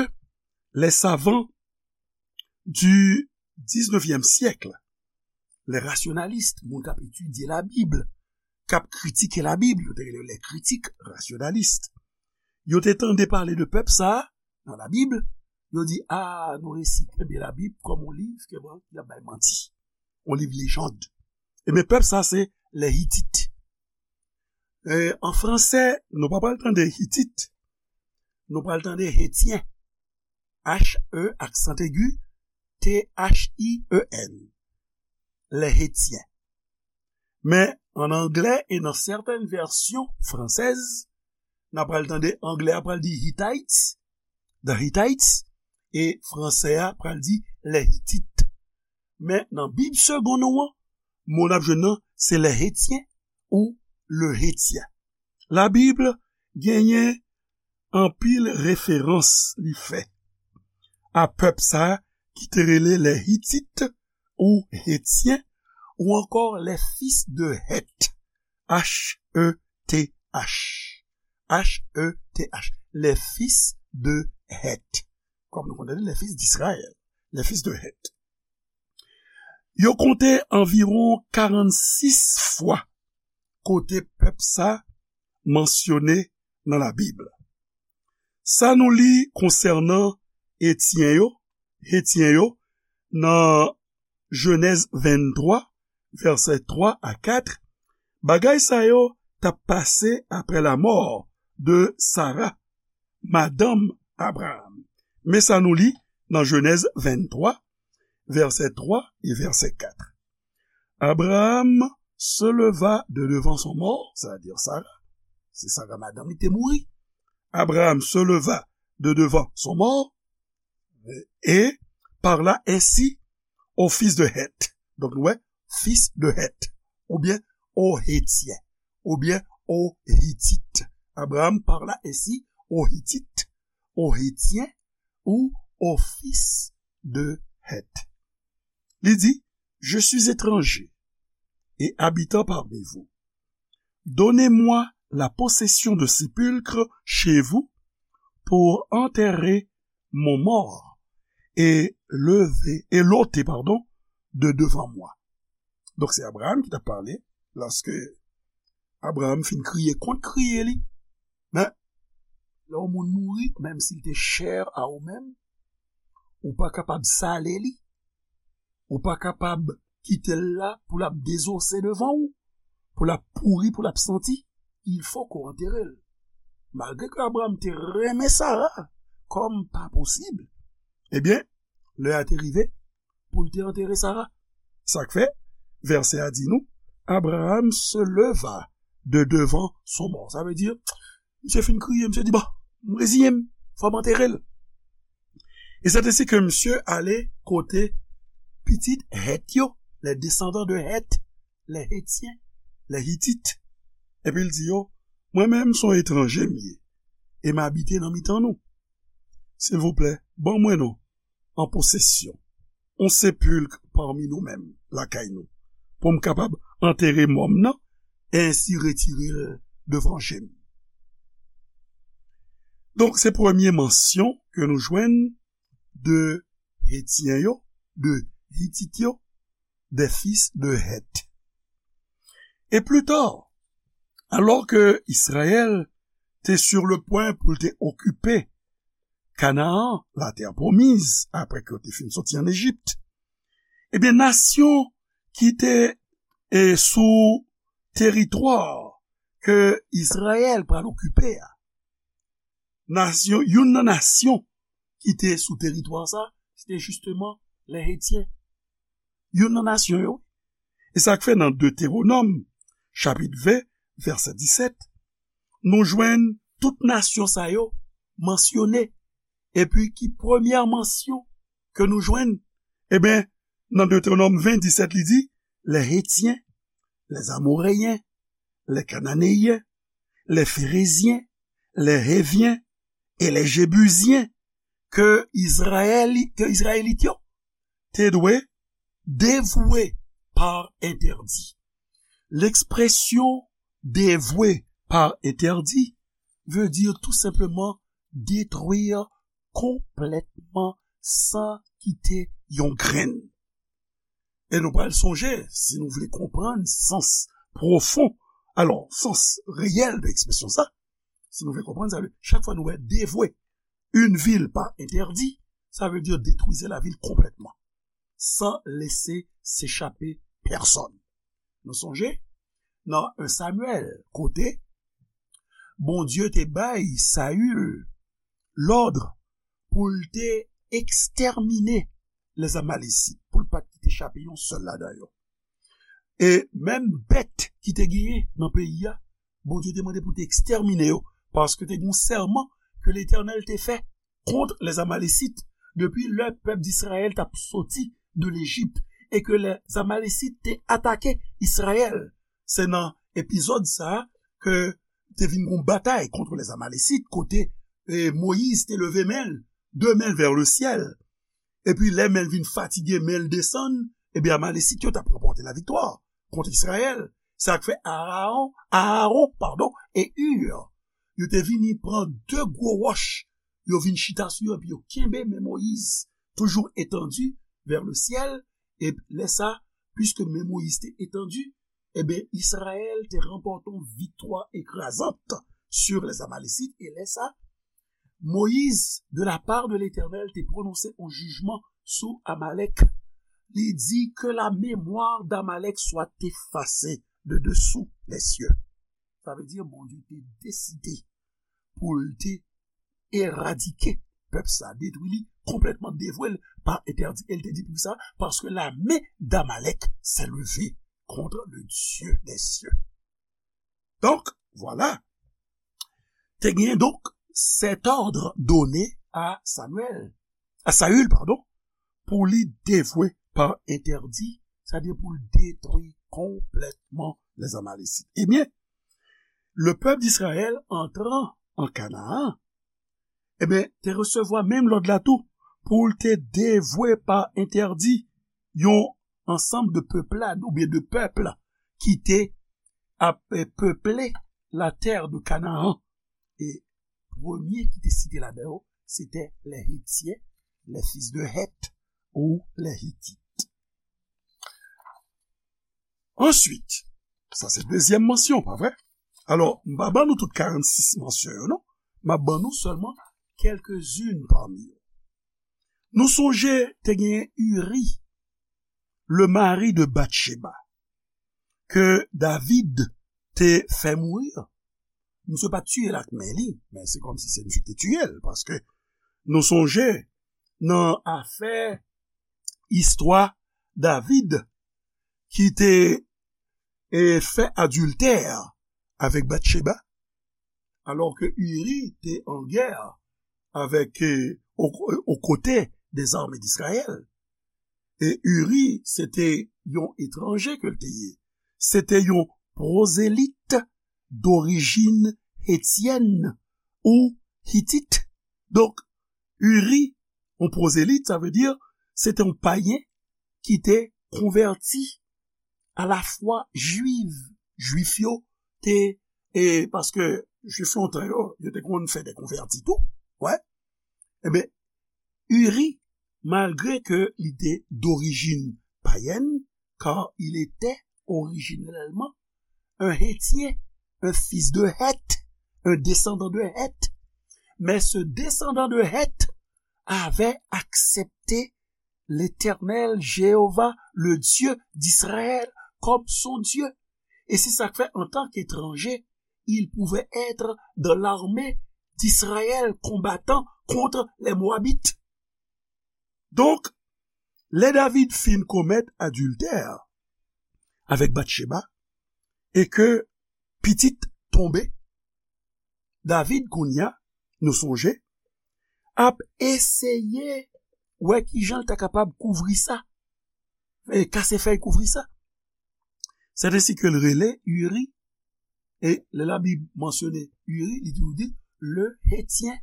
les savants du dix-neuvième siècle, les rationalistes, moun k ap etidye Labib, k ap kritike Labib, yo te rele les critiques rationalistes, yo te tande pale de pèp sa a nan Labib, yo di, "A, nou resi kenbe Labib kòm yon liv ke, bon, ki ap bay manti, yon liv lejand." Ebyen, pèp sa, se les Hittites. E, an fransè, nou pa pral tande Hitit, nou pral tande Hetyen. H E aksan egi, T H I E N. Les Hétiens. Men, an anglè e nan sètèn vèsyon fransèz, n a pral tande anglè a pral di Hittites, the Hittites, e fransè a pral di les Hittites. Men nan Bib segonn ou an, mo n ap jwenn nan, se les Hétiens ou le Hétien. Labib genyen anpil referans li fè a pèp sa a ki te rele les Hittites ou Hétiens ou ankò les fils de Heth, H E T H, H E T H, les fils de Heth. Kòm nou konn tande, les fils d'Israël, les fils de Heth. Yo konte anviwon karannsis fwa kote pèp sa mansyone nan Labib. Sa nou li konsènan Etyen yo, Hetyen yo, nan Jenèz venntwa, vèsè twa a kat, bagay sa yo t ap pase apre lamò de Sara, madanm Abraram. Men sa nou li nan Jenèz venntwa, vèsè twa e vèsè kat. Abraham se leva de devan son mò, c'est-à-dire Sara, se Sara madanm li te mouri. Abraham se leva de devan son mò, et parla ainsi aux fils de Heth. Donk, nou wè, fils de Heth, oubyen aux Hétiens, oubyen aux Hittites. Abraham parla ainsi aux Hittites, aux Hétiens ou aux fils de Heth. Li di, je suis étranger et habitant parmi vous. Donnez-moi la possession de sépulcres chez vous pour enterrer mon mort et lever, et l'ôter, pardon, de devant moi. Donk, se Abraham ki t ap pale, lòske Abraham fin kriye kont kriye li. Men, lè yon moun mouri, menm si l te chè a ou menm, ou pa kapab sale li, ou pa kapab kite l la pou l ap dezose devan ou, pou l ap pouri, pou l ap santi, il faut qu'on enterre l. Malgre ke Abraham te renmen Sara kòm pa posib, ebyen, lè a te rive pou l te antere Sara. Sa k fè, vèsè a di nou, Abraham se leva de devant son mort. Sa vle di, misye fin kriye, misye di, bon, m reziyen m, fò m antere l. E se te si ke misye ale kote pitit Hèt yo, les descendants de Hèt, les Hétiens, les Hittites. Epi l di yo, mwen menm se yon etranje m ye, e m abite nan mitan nou. Silvouplè, ban mwen non, an posesyon, yon sepilk pami nou menm, lakay nou, pou m kapab antere mò m nan, e ensi retire l devan je m. Donk, se premye mansyon ke nou jwenn de Hetyen yo, de Hitit yo, des fils de Heth. E pli ta, alò ke Izrayèl te sur le pwen pou l te okipe Kanaan, la terre promise, apre ke yo te fin soti ann Ejip, ebyen, nasyon ki te, e, sou teritwa ke Izrayèl pral okipe a, nasyon, youn nan nasyon ki te sou teritwa sa, se te jisteman lè Hetyen. Youn nan nasyon yo. E sa k fè nan Detewonòm, chapit ven, vèsè disèt, nou jwenn tout nasyon sa yo mansyone. Epi ki premyè mansyon ke nou jwenn? Ebyen, nan Detewonòm ven, disèt, li di, les Hétiens, les Amoréens, les Cananéens, les Phéréziens, les Héviens et les Jébusiens, ke Izrayèli-, ke Izrayelit yo te dwe devwe pa entèdi. L'expression devwe pa entèdi veut dire tout simplement détruire complètement san kite yon grenn. E nou pral sonje, si nou vle konprann sans pwofon, alò, sans reyèl de ekspresyon sa, si nou vle konprann, sa vle, chak fwa nou wè devwe une ville par interdit, ça veut dire détruisez la ville complètement, sans laisser s'échapper personne. Nou sonje, nan un Samuel, kote Bondye te bay Saül lòd pou l te ekstèmine les Amalekites, pou l pa t kite chape yon sèl ladan yo. E menm bèt ki te genyen nan peyi a, Bondye te mande pou te ekstèmine yo, paske te gen yon sèman ke Letènèl te fè kont les Amalekites depi lè pèp Izrayèl t ap soti de Lejip e ke les Amalekites te atake Izrayèl. Se nan epizòd sa a ke te vin gon batay kont les Amalekites, kote, e, Moyiz te leve men l, de men l vers le ciel. Epi lè men l vin fatige, men l desann, ebyen, Amalekit yo t ap ranpòte laviktwa kont Izrayèl. Sa k fè Aaron, Aaron, padon, e Hur, yo te vini pran de gwo wòch, yo vin chita sou yo, epi yo kenbe men Moyiz, toujours étendu vers le ciel, e lè sa, puiske men Moyiz te etandi, ebyen, Izrayèl te ranpòte yon viktwa ekrazant sur les Amalekites, e lè sa, Moyiz, de la part de Letènèl, te pwononse yon jijman sou Amalèk. Li di, que la mémoire d'Amalek soit effacée de dessous les cieux. Sa vle di, Bondye te deside pou l te eradike pèp sa, detwi li konplètman, devwe l pa entèdi. E l te di pou sa, parce que la main d'Amalek s'est levée contre le Dieu des cieux. Donc, voilà. Te genyen donk cet ordre donné à Samuel, à Saül, pardon, pou li devwe pa entèdi, sa vle di pou l detwi konplètman les Amalekites. Ebyen, le peuple d'Israël entrant en Canaan, ebyen, te resevwa menm lòd la tou, pou l te devwe pa entèdi yon ansanm de peuplade oubyen de pèp ki te ap, eh, peple la terre de Canaan. E premye ki te site ladan yo, se te les Hétiens, les fils de Heth, ou les Hittites. Answit, sa se dezyèm mansyon, pa vre? Alò, m pa ban nou tout karannsis mansyon yo, non. M ap ban nou sèlman kèlkezin pami yo. Nou sonje te gen Uri, le mari de Batcheba, ke David te fè mouri. Misye pa t tiye l ak men li, men se kòmsi se misye ki te tiye l, paske nou sonje nan afè istwa David ki te, e, fè adiltè avèk Batcheba, alò ke Uri te an gè avèk, e, o, o kote dè zame d'Izrayèl. E Uri, se te yon etranje ke l te ye. Se te yon pwozelit dorijin etyèn ou hitit. Donk, Uri, yon pwozelit, sa vle di, se te yon payen ki te konvèti a la fwa jwiv. Jwif yo te, e paske Jwif lontan yo, yo te konn fè de konvèti tou, wè. Ebyen, Uri, malgre ke li te dorijin payèn, car il était originellement un Hétien, un fils de Heth, un descendant de Heth, mais ce descendant de Heth avait accepté l'Éternel Jéhovah, le Dieu d'Israël, comme son Dieu. Et c'est ça que fait, en tant qu'étranger, il pouvait être dans l'armée d'Israël, combattant contre les Moabites. Donk, lè David fin komèt adiltè avèk Batcheba, e ke pitit tonbe, David kounye a, nou sonje, ap eseye wè kijan l ta kapab kouvri sa, e kase fèy kouvri sa. C'est ainsi que l rele Uri, e lè Labib mansyone Uri, li toujou di le Hétien.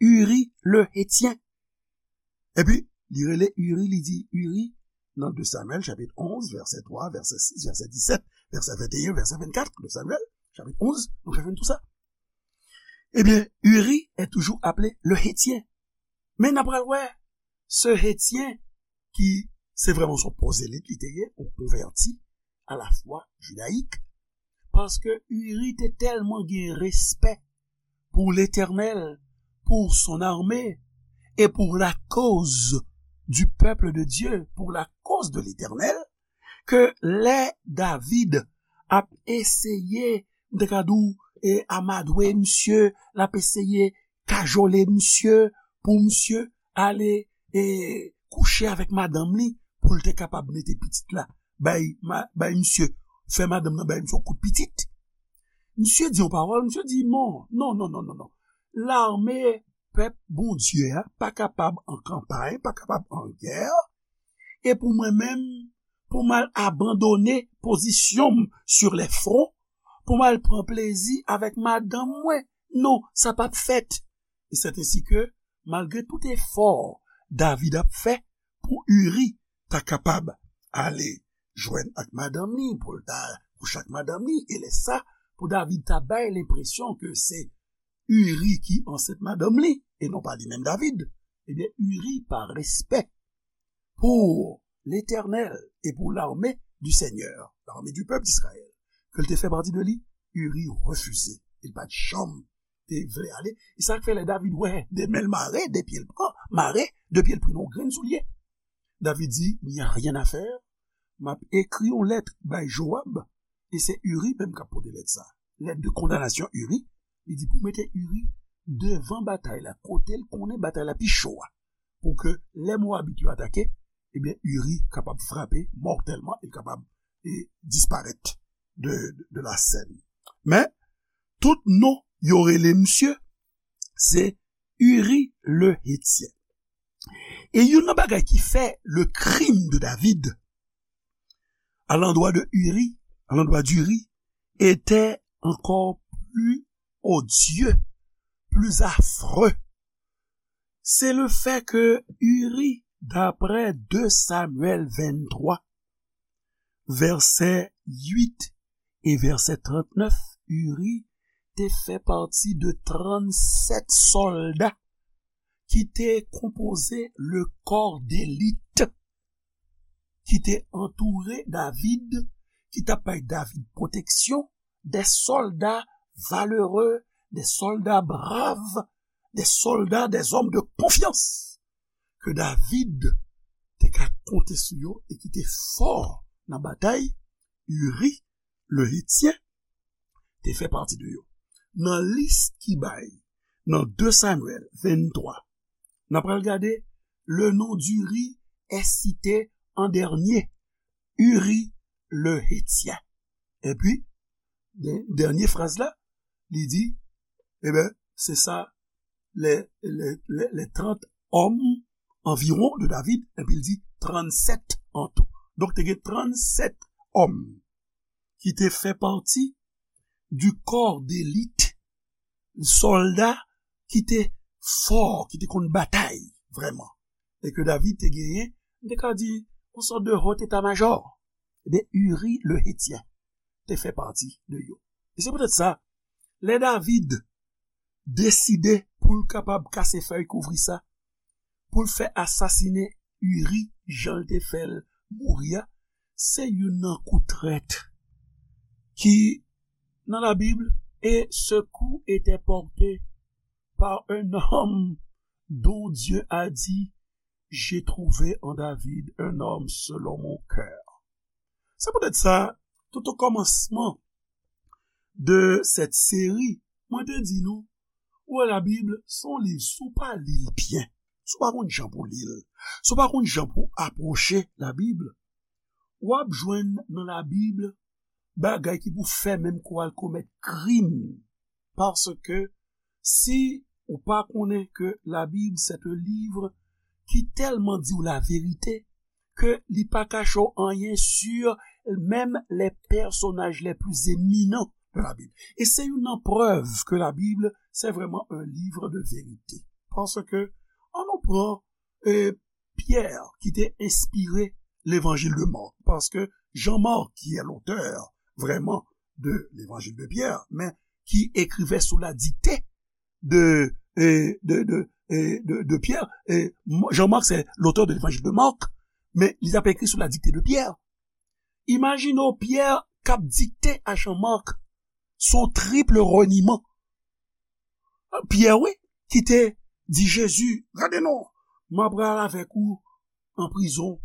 Uri le Hétien. Epi, li rele Uri, li di Uri, nan de Samyèl, chapit onz, vèsè twa, vèsè sis, vèsè disèt, vèsè venteyen, vèsè vennkat, de Samyèl, chapit onz, nou ka jwenn tou sa. Ebyen, Uri est toujours appelé le Hétien. Men n ap pral wè, se Hetyen ki se vrèman se yon pwozelit li te ye, yon konvèti a la fwa jidayik, paske Uri te tèlman gen respè pour l'Éternel, pour son armée et pour la cause du peuple de Dieu, pour la cause de l'Éternel, ke lè David ap eseye, m te ka di w, e, amadwe misye, l ap eseye kajole misye pou misye ale, e, kouche avèk madanm li pou l te kapab mete pitit la bay, ma, bay misye, fè madanm nan bay misye yon kout pitit. Misye di yon pawòl, misye di non, non, non, non, non, non. Lame pèp Bondye a pa kapab an kanpay, pa kapab an gè, e pou mwen menm, pou m al abandone pozisyon m sur les fronts, pou m al pran plezi avèk madanm mwen. Non, sa p ap fèt. E c'est ainsi que, malgre tout efò David ap fè pou Uri ta kapab ale jwenn ak madanm li, pou l ta kouche ak madanm li, e lè sa, pou David ta bay lenpresyon ke se Uri ki ansent madanm li, e non pa li menm David, ebyen, Uri, pa respè pour l'Éternel et pour l'armée du Seigneur, l'armée du peuple d'Israël, ke l te fè pati de li, Uri refize. Li pa t janm te vle ale. E sa k fè lè David wè de men l mare, de pye l pran, mare, de pye l pran yon grenn soulye. David di, il n'y a rien à faire, m ap ekri yon lèt bay Joab, e se Uri menm k ap pote lèt sa. Lèt de kondanasyon Uri, li di pou mete Uri devan batay la, kote l konnen batay la pi cho a, pou ke lè Mowabit yo atake, ebyen, Uri kapab frape mòtèlman, e kapab, e, disparèt de, de, de la sèn. Men, tout non yo rele misye, se Uri le Hetyen. E youn nan bagay ki fè le crime de David à l'endroit de Uri, à l'endroit d'Uri, était encore plus odieux, plus affreux. C'est le fait que Uri, d'après deux Samuel vingt-trois, vèsè uit e vèsè trannèf, Uri te fè pati de trannsèt sòlda ki te konpoze le kò delit ki te antoure David, ki t ap bay David pwoteksyon, de sòlda valere, de sòlda brav, de sòlda, de zòm de konfyans ke David te ka konte sou yo e ki te fò nan batay. Uri, le Hetyen, te fè pati de yo. Nan lis ki bay nan de Samyèl venntwa, n ap pral gade, le nom d'Uri est cité en dernier. Uri, le Hetyen. Epi, dè- dènye fraz la, li di, e ben, se sa, les, les, les, les trente hommes environ de David, epi l di trannsèt an tou. Donk, te gen trannsèt òm ki te fè pati du corps d'élite, sòlda ki te fò, ki te konn batay vrèman. E ke David te genyen, m te ka di, yon sòt de haut état-major. Ebyen, Uri le Hetyen te fè pati de yo. E se poutèt sa, lè David deside pou l kapab kase fèy kouvri sa, pou l fè asasinen Uri, jan l te fè l mouri a, se youn nan kou trèt ki nan Labib, et ce coup était porté par un homme dont Dieu a dit, j'ai trouvé en David un homme selon mon cœur. Se poutèt sa, tout o kòmansman de sèt seri, mwen te di nou, ou wè Labib, se yon liv, si w pa li l byen, si w pa konn jan pou li l, si w pa konn jan pou apwoche Labib, w ap jwenn nan Labib bagay ki pou fè menm ke w al komèt krim. Paske si ou pa konnen ke Labib, c'est un livre qui tellement dit la vérité, ke li pa kache w anyen sur même les personnages les plus éminents de la Bible. E se youn nan prèv ke Labib, c'est vraiment un livre de vérité. Paske, an nou pran, e, Pierre, ki te enspire Levanjil de Mark. Paske Jean-Marc, qui est l'auteur vraiment de l'Évangile de Pierre, men ki ekrive sou la dikte de, e, de, de, e, de, de Pierre. E, Jean-Marc, c'est l'auteur de l'Évangile de Marc, men li t ap ekri sou la dikte de Pierre. Imajine w Pierre k ap dikte a Jean-Marc, se yon triple reniman. Pyè, wi, ki te di Jezi, gade non, m ap pral avèk ou an prizon,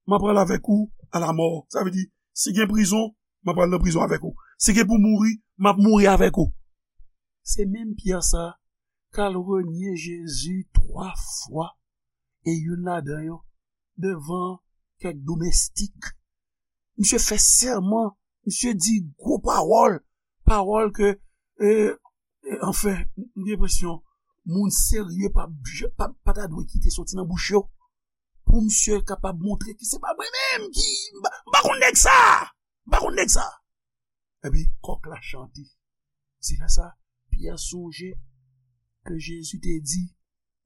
m ap pral avèk ou a lamò. Sa vle di, si gen prizon, m ap pral nan prizon avèk ou. Si gen pou mouri, m ap mouri avèk ou. Se menm Pyè sa k al renye Jezi twa fwa, e youn ladan yo devan kèk domestik. Misye fè sèman, misye di gwo pawòl, pawòl ke, e, e, anfen, m gen enpresyon, moun serye pa, pa, pa ta dwe kite soti nan bouch yo, pou misye kapab montre ke se pa mwen menm ki, m pa, m pa konn nèg sa, m pa konn nèg sa. Epi, kòk la chante. Se lè sa, Pyè sonje ke Jezi te di,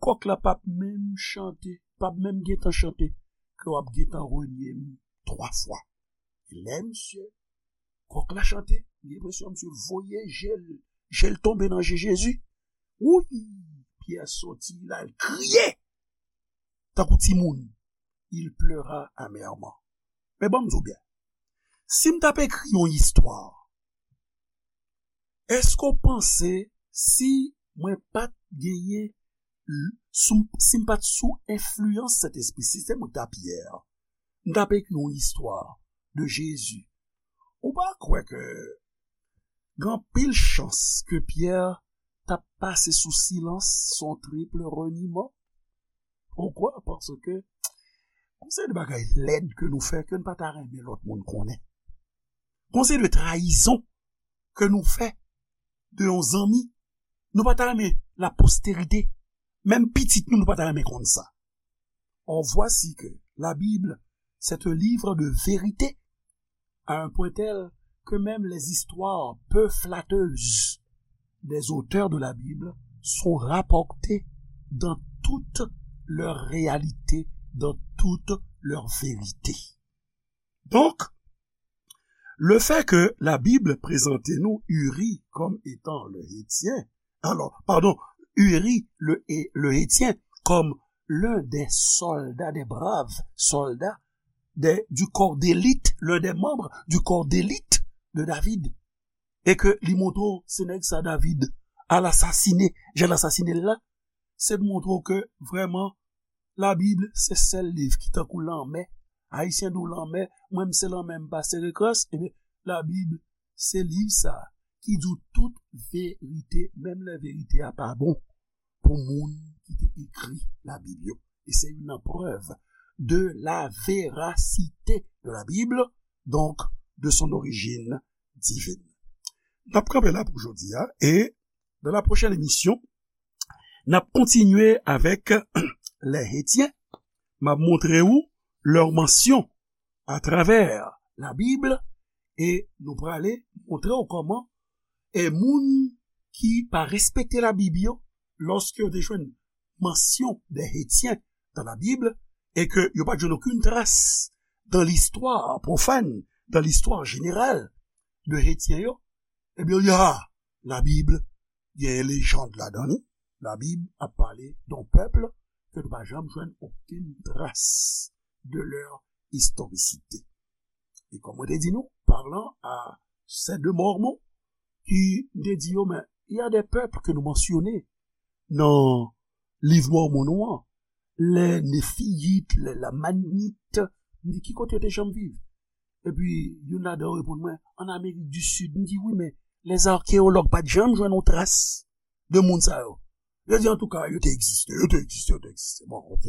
kòk la p ap menm chante, p ap menm gentan chante, ke w ap gentan renye m twa fwa. Lè misye, kòk la chante, m gen enpresyon misye voye je l, je l tonbe nan je Jezi. Wouy! Pyè soti, l al kriye tankou timoun. Il pleura amèrement. Men ban m di w byen, si m t ap ekri yon istwa, èske w panse si mwen pa t genyen, l- sou, si m pa t sou enfliyans Sentespri, si se mwen k t ap Pyè, m t ap ekri yon istwa de Jezi, ou pa kwè ke gen anpil chans ke Pyè t ap pase sou silans, se yon triple reniman? Poukwa? Paske gon seri de bagay lèd ke nou fè ke n pa ta renmen lòt moun konnen. Gon seri de trayizon ke nou fè de yon zanmi. Nou pa ta renmen la posterite, menm pitit nou, nou pa ta renmen konn sa. Or, voici que la Bible, c'est un livre de vérité, à un point tel que même les histoires peu flatteuses des auteurs de la Bible sont rapportées dans toute leur réalité, dans toute leur vérité. Donk, Le fait que la Bible présentait nous Uri comme étant le Hétien, alors, pardon, Uri le, Hé- le Hétien comme l'un des soldats, des braves soldats des- du corps d'élite, l'un des membres du corps d'élite de David, e ke li montre w se nèg sa David al asasine, jan l asasine l la, se montre w ke vrèman Labib se sèl liv ki tankou lanmè. Ayisyen di w lanmè, mwen m se lanmè, m pa sere krans. Ebyen, Labib se liv sa ki di w tout verite, menm lè verite a pa bon, pou moun ki te ekri Labib yo. E se youn nan prèv de la véracité de la Bible, donc de son origine divine. N ap kanpe la pou jodi a, e dans la prochaine émission, n ap kontinye avèk les Hétiens. M ap montre w leur mention à travers la Bible, e nou prale montre w kòman e moun ki pa respekte Labib yo, lòske yo te jwenn mention des Hétiens dans la Bible, e ke yo pa t jwenn okenn tras dans l'histoire profane, dans l'histoire générale de Hétien yo, ebyen, yo di, ah, Labib gen lejand ladan li. Labib ap pale d'un peuple ke nou pa janm jwenn okenn tras de leur historicité. E kòm mwen te di nou, parlant à ces deux Mormons, ki m te di yo, men, il y a des peuples que nous mentionnons dans liv Mòmon nou an, les Néphites, les Lamanites, m di, ki kote yo te janm viv? Epi, youn ladan yo reponn mwen, an Amerik di Sid. M di, wi, men les archéologues pa t janm jwenn yon tras de moun sa yo. Yo di, antouka, yo te egziste, yo te egziste, yo te egziste. Bon, ok.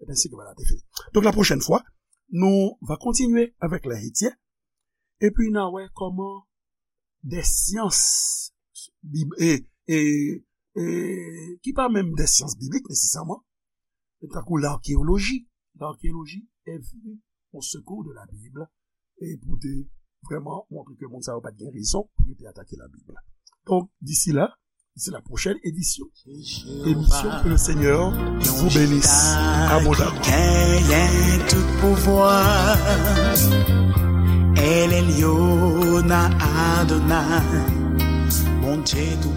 C'est ainsi que voilà, te fini. Donc, la prochaine fois, nous va continuer avec les Hétiens. Et puis, n a wè kòman des sciences bib- e, e, e, ki pa menm des sciences bibliques nécessairement, tankou l'archéologie. L'archéologie est venue au secours de la Bible e pou te vrèman montre ke moun sa yo pa t gen rezon pou yo te atake Labib. Donc, d'ici là, d'ici la prochaine édition, émission, que le Seigneur vous bénisse abondamment. Genyen tout pouvwa, El Elyon Adonai, Bondye tou